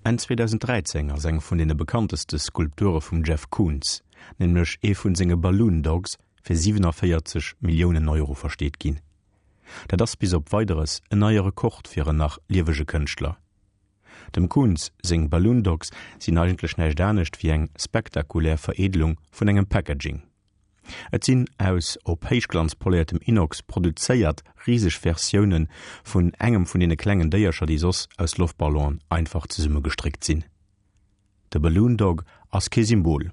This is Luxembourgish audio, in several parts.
Enn 2013 ass eng vun deene bekannteste Skulpture vum Jeff Koons, nämlech ee vun senge Balloon Dogs, fir 47 Milliounen Euro versteet ginn. Dat ass bis op Weideres en neie Rekord fir en nach liewege Kënschtler. Dem Koons seng Balloon Dogs sinn eigentlech näischt anescht wéi eng spektakulär Vereedelung vun engem Packaging. Et sinn aus op Héichglanz poléiertem Inox produzéiert riseg Versioune vun engem vun deene klengen Déiercher, déi soss aus Loftballonen einfach zesummegestréckt sinn. De Balloon Dog ass kee Symbol,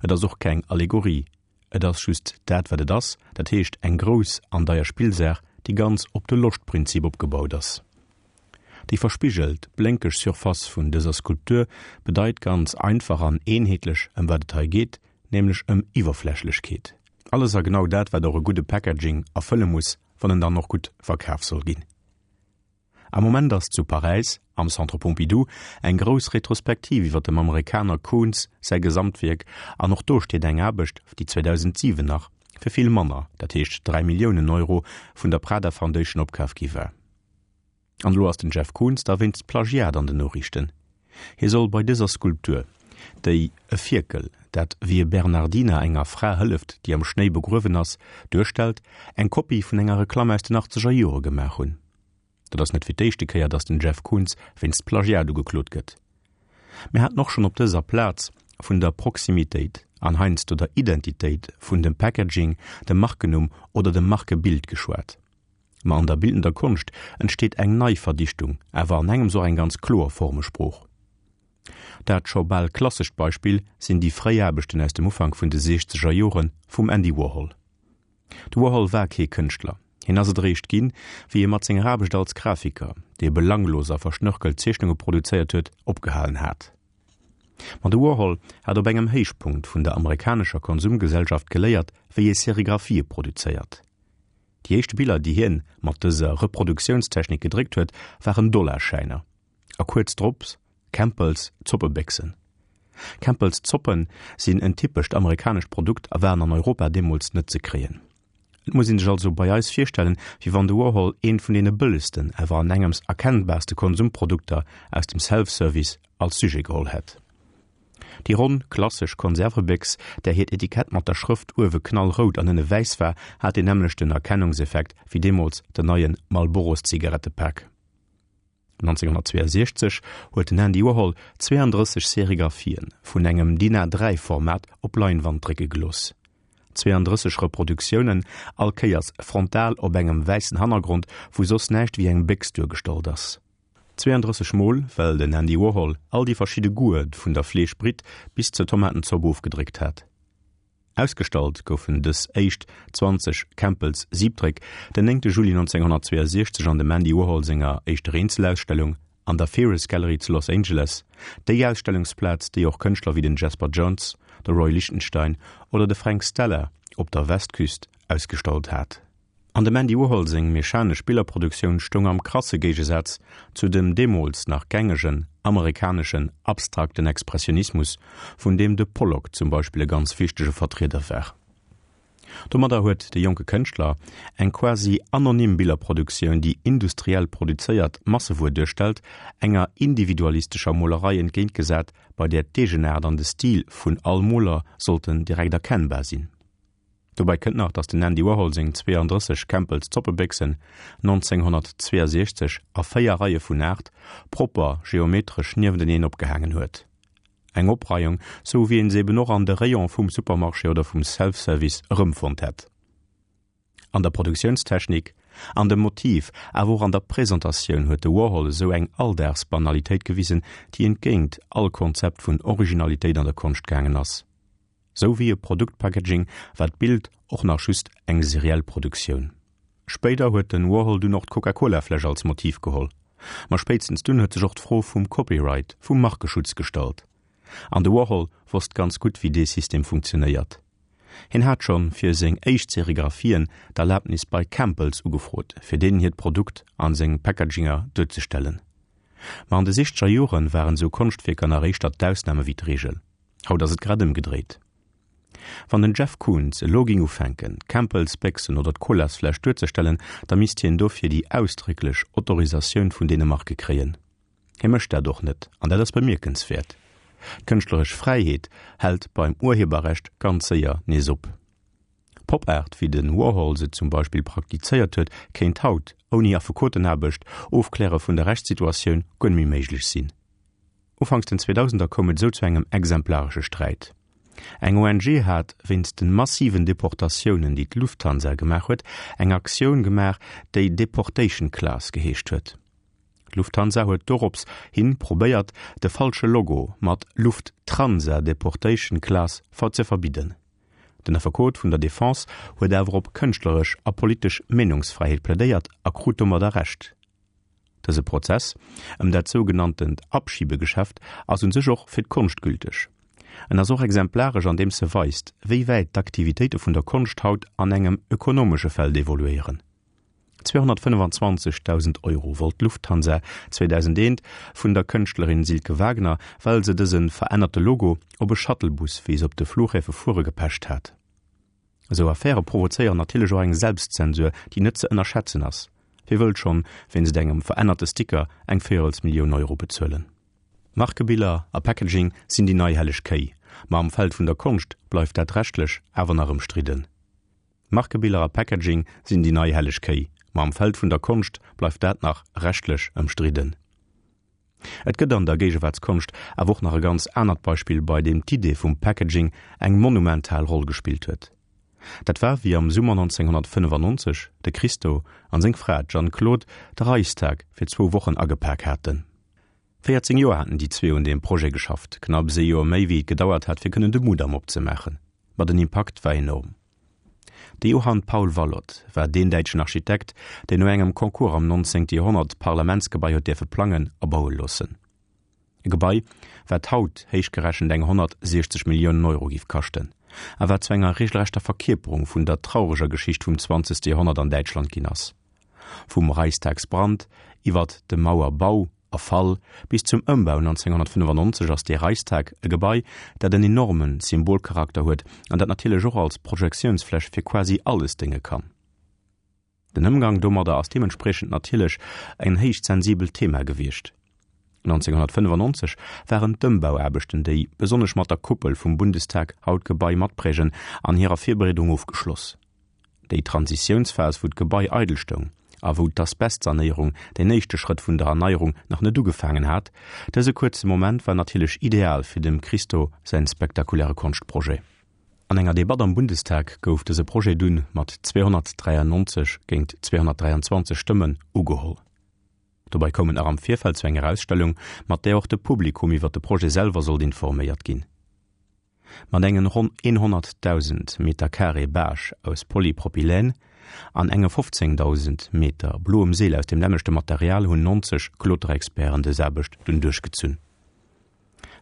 et ass och keng Allegorie, et ass just dat wat et ass, dat heescht eng grouss an deier Spillsaach, déi ganz op de Loschtprinzip opgebaut ass. Déi verspigelt, blénkeg Surface vun dëser Skulptur bedeit ganz einfach an eenheetlech ëm wat et hei geet, nämlech ëm Iwwerflächlechkeet. Alles a genau dat wat och e gudde Packaging erfëlle muss, wann en dann och gutt verkaf soll ginn. Am Moment ass zu Paräis, am Centre Pompidou, eng grouss Retrospektiv iwwer dem Amerikaner Koons säi Gesamtwierk an och do steet eng Aarbecht, déi 2007 nach fir vill manner, dat heescht 3 Milliounen Euro, vun der Prada Foundation opkaf gi war. An elo ass den Jeff Koons da wéinst Plagiat an den Noriichten. Hie soll bei dëser Skulptur, déi e Fierkel, dat wéi e Bernardiner enger Fra hëlleft, déi am Schnéi begruewen ass, duerstellt, eng Kopie vun enger Reklamm aus den achtzeger Jore gemaach hunn. Dat ass net fir d'éischte Kéier, datt den Jeff Koons wéinst Plagiat ugeklot gëtt. Mir haten och schonn op dëser Plaz vun der Proximitéit an heiansdo der Identitéit vun dem Packaging, dem Markennumm oder dem Markebild geschwat. Ma an der bildender Konscht entsteet eng nei Verdichtung, awer an engems och eng ganz kloer Formesprooch. Dat scho bal klassescht Beispill sinn déi fréi Aarbechten aus dem Ufank vun de siechzeger Jore vum Andy Warhol. De Warhol war kee Kënschtler, hien ass et eréischt ginn, wéi e mat senger Aarbecht als Grafiker, dee belanglos a verschnörkelt Zeechnunge produzéiert huet, opgehalen hat. Ma de Warhol hat op engem Héichpunkt vun der amerikanescher Konsumgesellschaft geléiert, wéi ee Serigraphië produzéiert. Déi éischt Biller, déi hien mat dëser Reproduktiounstechnik gedréckt huet, waren Dollarschäiner a kuerz drop Campbell's Zoppebéchsen. Campbell's Zoppen sinn en typescht amerikanescht Produkt a waren an Europa deemools net ze kréien. Et muss een sech also bei eis virstellen, wéi wann de Warhol eent vun deene bëllegsten, awer an engems erkennbarste Konsumprodukter aus dem Self-Service als Sujet geholl hätt. Déi ronn, klassesch Konservebéchs, där hiert Etikett mat der Schrëft uewe knallrout an ënne wäiss war, hat deen nämmlechten Erkennungseffekt wéi deemools den neie Marlboro-Zigarettepak. 1962 huet den Andy Warhol 32 Serigraphien vun engem DIN A3-Format op Leinwand drécke gelooss. 32 Reproduktiounen, all Kéiers frontal op engem wäissen Hannergrond, wou soss näischt wéi eng Béchs duergestallt ass. 32 mol, well den Andy Warhol all déi verschidde Goûte vun der Fleeschbritt bis zur Tomatenzopp ofgedréckt hat. Ausgestallt goufen dës éischt 20 Campbell's Siebdréck den 9 Juli 1962 an dem Andy Warhol senger éischter Eenzelausstellung an der Ferus Gallery zu Los Angeles, déi Ausstellungsplaz, déi och Kënschtler wéi den Jasper Johns, de Roy Lichtenstein oder de Frank Stella op der Westküst ausgestallt hat. An dem Andy Warhol seng mechanesch Billerproduktioun stoung am krasse Géigesaz zu dem deemools nach gängegen amerikaneschen abstrakten Expressionismus, vun deem de Pollock zum Beispill e ganz wichtege Vertrieder war. Domadder huet de jonke Kënschtler eng quasi anonym Billerproduktioun, déi industriell produzéiert Massewuer duerstellt, enger individualistescher Molerei entgéintgesat, bei där d'Eegenaart an de Stil vun all Moler sollten direkt erkennbar sinn. Dobäi kënnt nach, datt den Andy Warhol seng 32 Campbell's Zoppebéchsen 1962 a 4 Reie vun 8 propper geometresch niewenteneen opgehaangen huet. Eng Opreiung, sou wéi een se eben och an de Rayon vum Supermarché oder vum Self-Service erëmfonnt hätt. An der Produktiounstechnik, an dem Motiv, awer och an der Presentatioun huet de Warhol esou eng Alldagsbanalitéit gewisen, déi entgéint all Konzept vun Originalitéit an der Konscht gaangen ass. Sou wéi e Produktpackaging war d'Bild och nach just eng seriell Produktioun. Spéider huet den Warhol dunn och d'Coca-Cola-Fläsch als Motiv geholl. Ma spéitstens dunn huet sech och d'Fro vum Copyright, vum Markeschutz gestallt. An de Warhol wosst ganz gutt wéi dee System funktionéiert. Hien hat schonn fir seng éischt Serigraphien d'Erlabnis bei Campbell's ugefrot, fir deenen hiert Produkt an seng Packaginger duerzestellen. Ma an de sichzeger Joren waren sou Konschtwierker nach éischter d'Ausname wéi d'Reegel. Haut ass et grad ëmgedréit. Wann den Jeff Koons elo ging ufänken, d'Campbell's Béchsen oder d'Colasfläsch duerzestellen, da misst hien dofir déi ausdrécklech Autorisatioun vun deene Marke kréien. Hie mécht dat och net, an dat ass bemierkenswäert. D'kënschtleresch Fräiheet hält beim Urheberrecht ganz séier nees op. Pop-Art, wéi de Warhol se zum Beispill praktizéiert huet, kéint haut, ouni Affekotenaarbecht, Ofkläre vun der Rechtssituatioun, guer net méi méiglech sinn. Ufanks den Zweedausender koum et esou zu engem exemplaresche Sträit. Eng ONG hat, wéinst de massiven Deportatiounen, déi d'Lufthansa gemaach huet, eng Aktioun gemaach, déi Deportation Class geheescht huet. D'Lufthansa huet dorops hin probéiert, de falsche Logo mat Lufttransa Deportation Class ze verbidden. Den Affekot vun der Defense huet awer op kënschtleresch a politesch Meenungsfräiheet plädéiert a krut domadder Recht. Dëse Prozess ëm dat sougenanntent Abschiebegeschäft ass un sech och fir d'Konscht gülteg. En ass och exemplaresch andeems e weist, wéi wäit d'Aktivitéite vun der Konscht haut an engem ökonomesche Feld evoluéieren. 225.000 Euro wollt d'Lufthansa 2001 vun der Kënschtlerin Silke Wagner, well se dëse verännerte Logo op e Shuttlebus, wéi se op de Fluchhäfe fuere, gepecht hat. Esou Affäre provozéieren natierlech och eng Selbstzensur, déi net ze ënnerschätzen ass. Wie wëllt schonn wéinst engem verännerte Sticker eng Véierelsmillioun Euro bezuelen? Markebiller a Packaging sinn déi nei helleg Kéi, ma am Feld vun der Konscht bleift dat rechtlech awer nach ëmstridden. Markebiller a Packaging sinn déi nei helleg Kéi, ma am Feld vun der Konscht bleift dat nach rechtlech ëmstridden. Et gëtt an der Géigewaartskonscht awer och nach e ganz anert Beispill, bei deem d'Idee vum Packaging eng monumental Roll gespillt huet. Dat war, wéi am Summer 1995 de Christo an seng Fra, d'Jeanne Claude, de Reichstag fir zwou Wochen agepak haten. 14 Joer haten déi zwee un deem Projet geschafft, knapps ee Joer méi wéi et gedauert hat fir kënnen de Mudam opzemaachen. Ma den Impakt war enorm. De Johann Paul Wallot war deen däitschen Architekt, deen no engem Concours am 19. Joerhonnert d'Parlamentsgebai huet däerfe plangen a baue loossen. E Gebai, wat haut héich gerechent eng 160 Milliounen Euro giff kaschten, a wat zu enger regelrechter Verkierperung vun der traureger Geschicht vum 20. Joerhonnert an Däitschland ginn ass. Vum Reichstagsbrand iwwert de Mauerbau a Fall bis zum Ëmbau 1995 ass dee Reichstag e Gebai, dat en enorme Symbolcharakter huet an dat natierlech och als Projektiounsfläch fir quasi alles dénge kann. Den Ëmgang domadder ass deementspriechend natierlech en héich sensibelt Thema gewiescht. 1995 waren d'Ëmbauaarbechten, déi besonnesch mat der Kuppel vum Bundestag haut d'Gebai matprägen, an hirer Virbereedung ofgeschloss. Déi Transitiounsphas, wou d'Gebai eidel stoung a wou d'Asbestsanéierung, deen éischte Schrëtt vun der Erneierung, nach net ugefaangen hat, dëse kuerze Moment war natierlech ideal fir dem Christo säin spektakuläre Konschtprojet. An enger Debatt am Bundestag gouf dëse Projet dunn mat 293 géint 223 Stëmmen ugeholl. Dobei koum et nach am Virfeld zu enger Ausstellung, mat där och de Publikum iwwer de Projet selwer sollt informéiert ginn. Mat engen ronn 100.000 Meter Carré Bâche aus Polypropylène an enge 15.000 Meter bloem Seel aus deem nämmlechte Material hunn 90 Kloterexperten dës Aarbecht dunn duerchgezunn.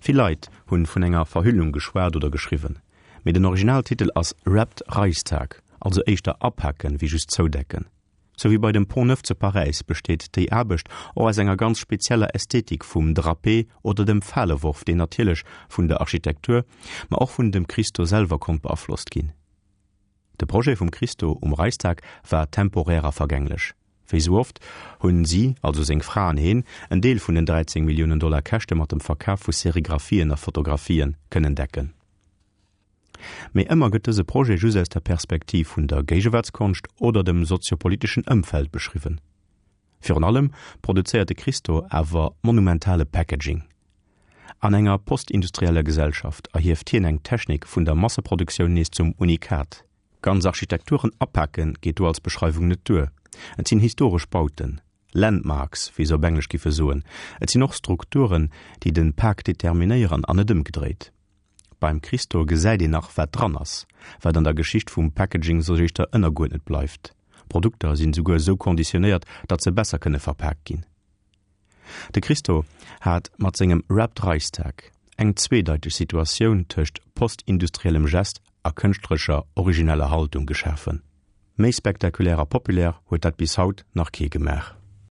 Vill Leit hunn vun enger Verhüllung geschwat oder geschriwwen, mee den Originaltitel ass Wrapped Reichstag, also éischter apaken wéi just zoudecken. Sou wéi bei dem Pont Neuf zu Paräis besteet déi Aarbecht och aus enger ganz spezieller Ästhetik vum Drapé oder dem Faleworf, deen natierlech vun der Architektur, ma och vun dem Christo selwer konnt beaflosst ginn. De Projet vum Christo um Reichstag war temporär a vergänglech. Wéi sou oft hunn si, also seng Fra an heen, en Deel vun den 13 Milliounen Dollar Käschte mat dem Verkaf vu Serigraphien a Fotografien kënnen decken. Mee ëmmer gëtt dëse Projet just aus der Perspektiv vun der Géigewaartskonscht oder dem soziopoliteschen Ëmfeld beschriwwen. Virun allem produzéiert de Christo awer monumentale Packaging. An enger postindustrieller Gesellschaft erhieft hien eng Technik vun der Masseproduktioun nees zum Unikat. Ganz Architekturen apake geet do als Beschreiwung net duer. Et sinn historesch Bauten, Landmarks, wéi se op Englesch giffe soen. Et sinn och Strukturen, déi de Pak determinéieren an net ëmgedréit. Beim Christo gesäit een nach wat dran ass, wat an der Geschicht vum Packaging soss éischter ënnerguerdnet bleift. Produkter sinn souguer esou konditionéiert, datt se besser kënne verpaakt ginn. De Christo hat mat sengem Wrapped Reichstag eng zweedeiteg Situatioun tëscht postindustriellem Gest a kënschtlerescher origineller Haltung geschafen. Méi spektakulär a populär huet dat bis haut nach kee gemaach.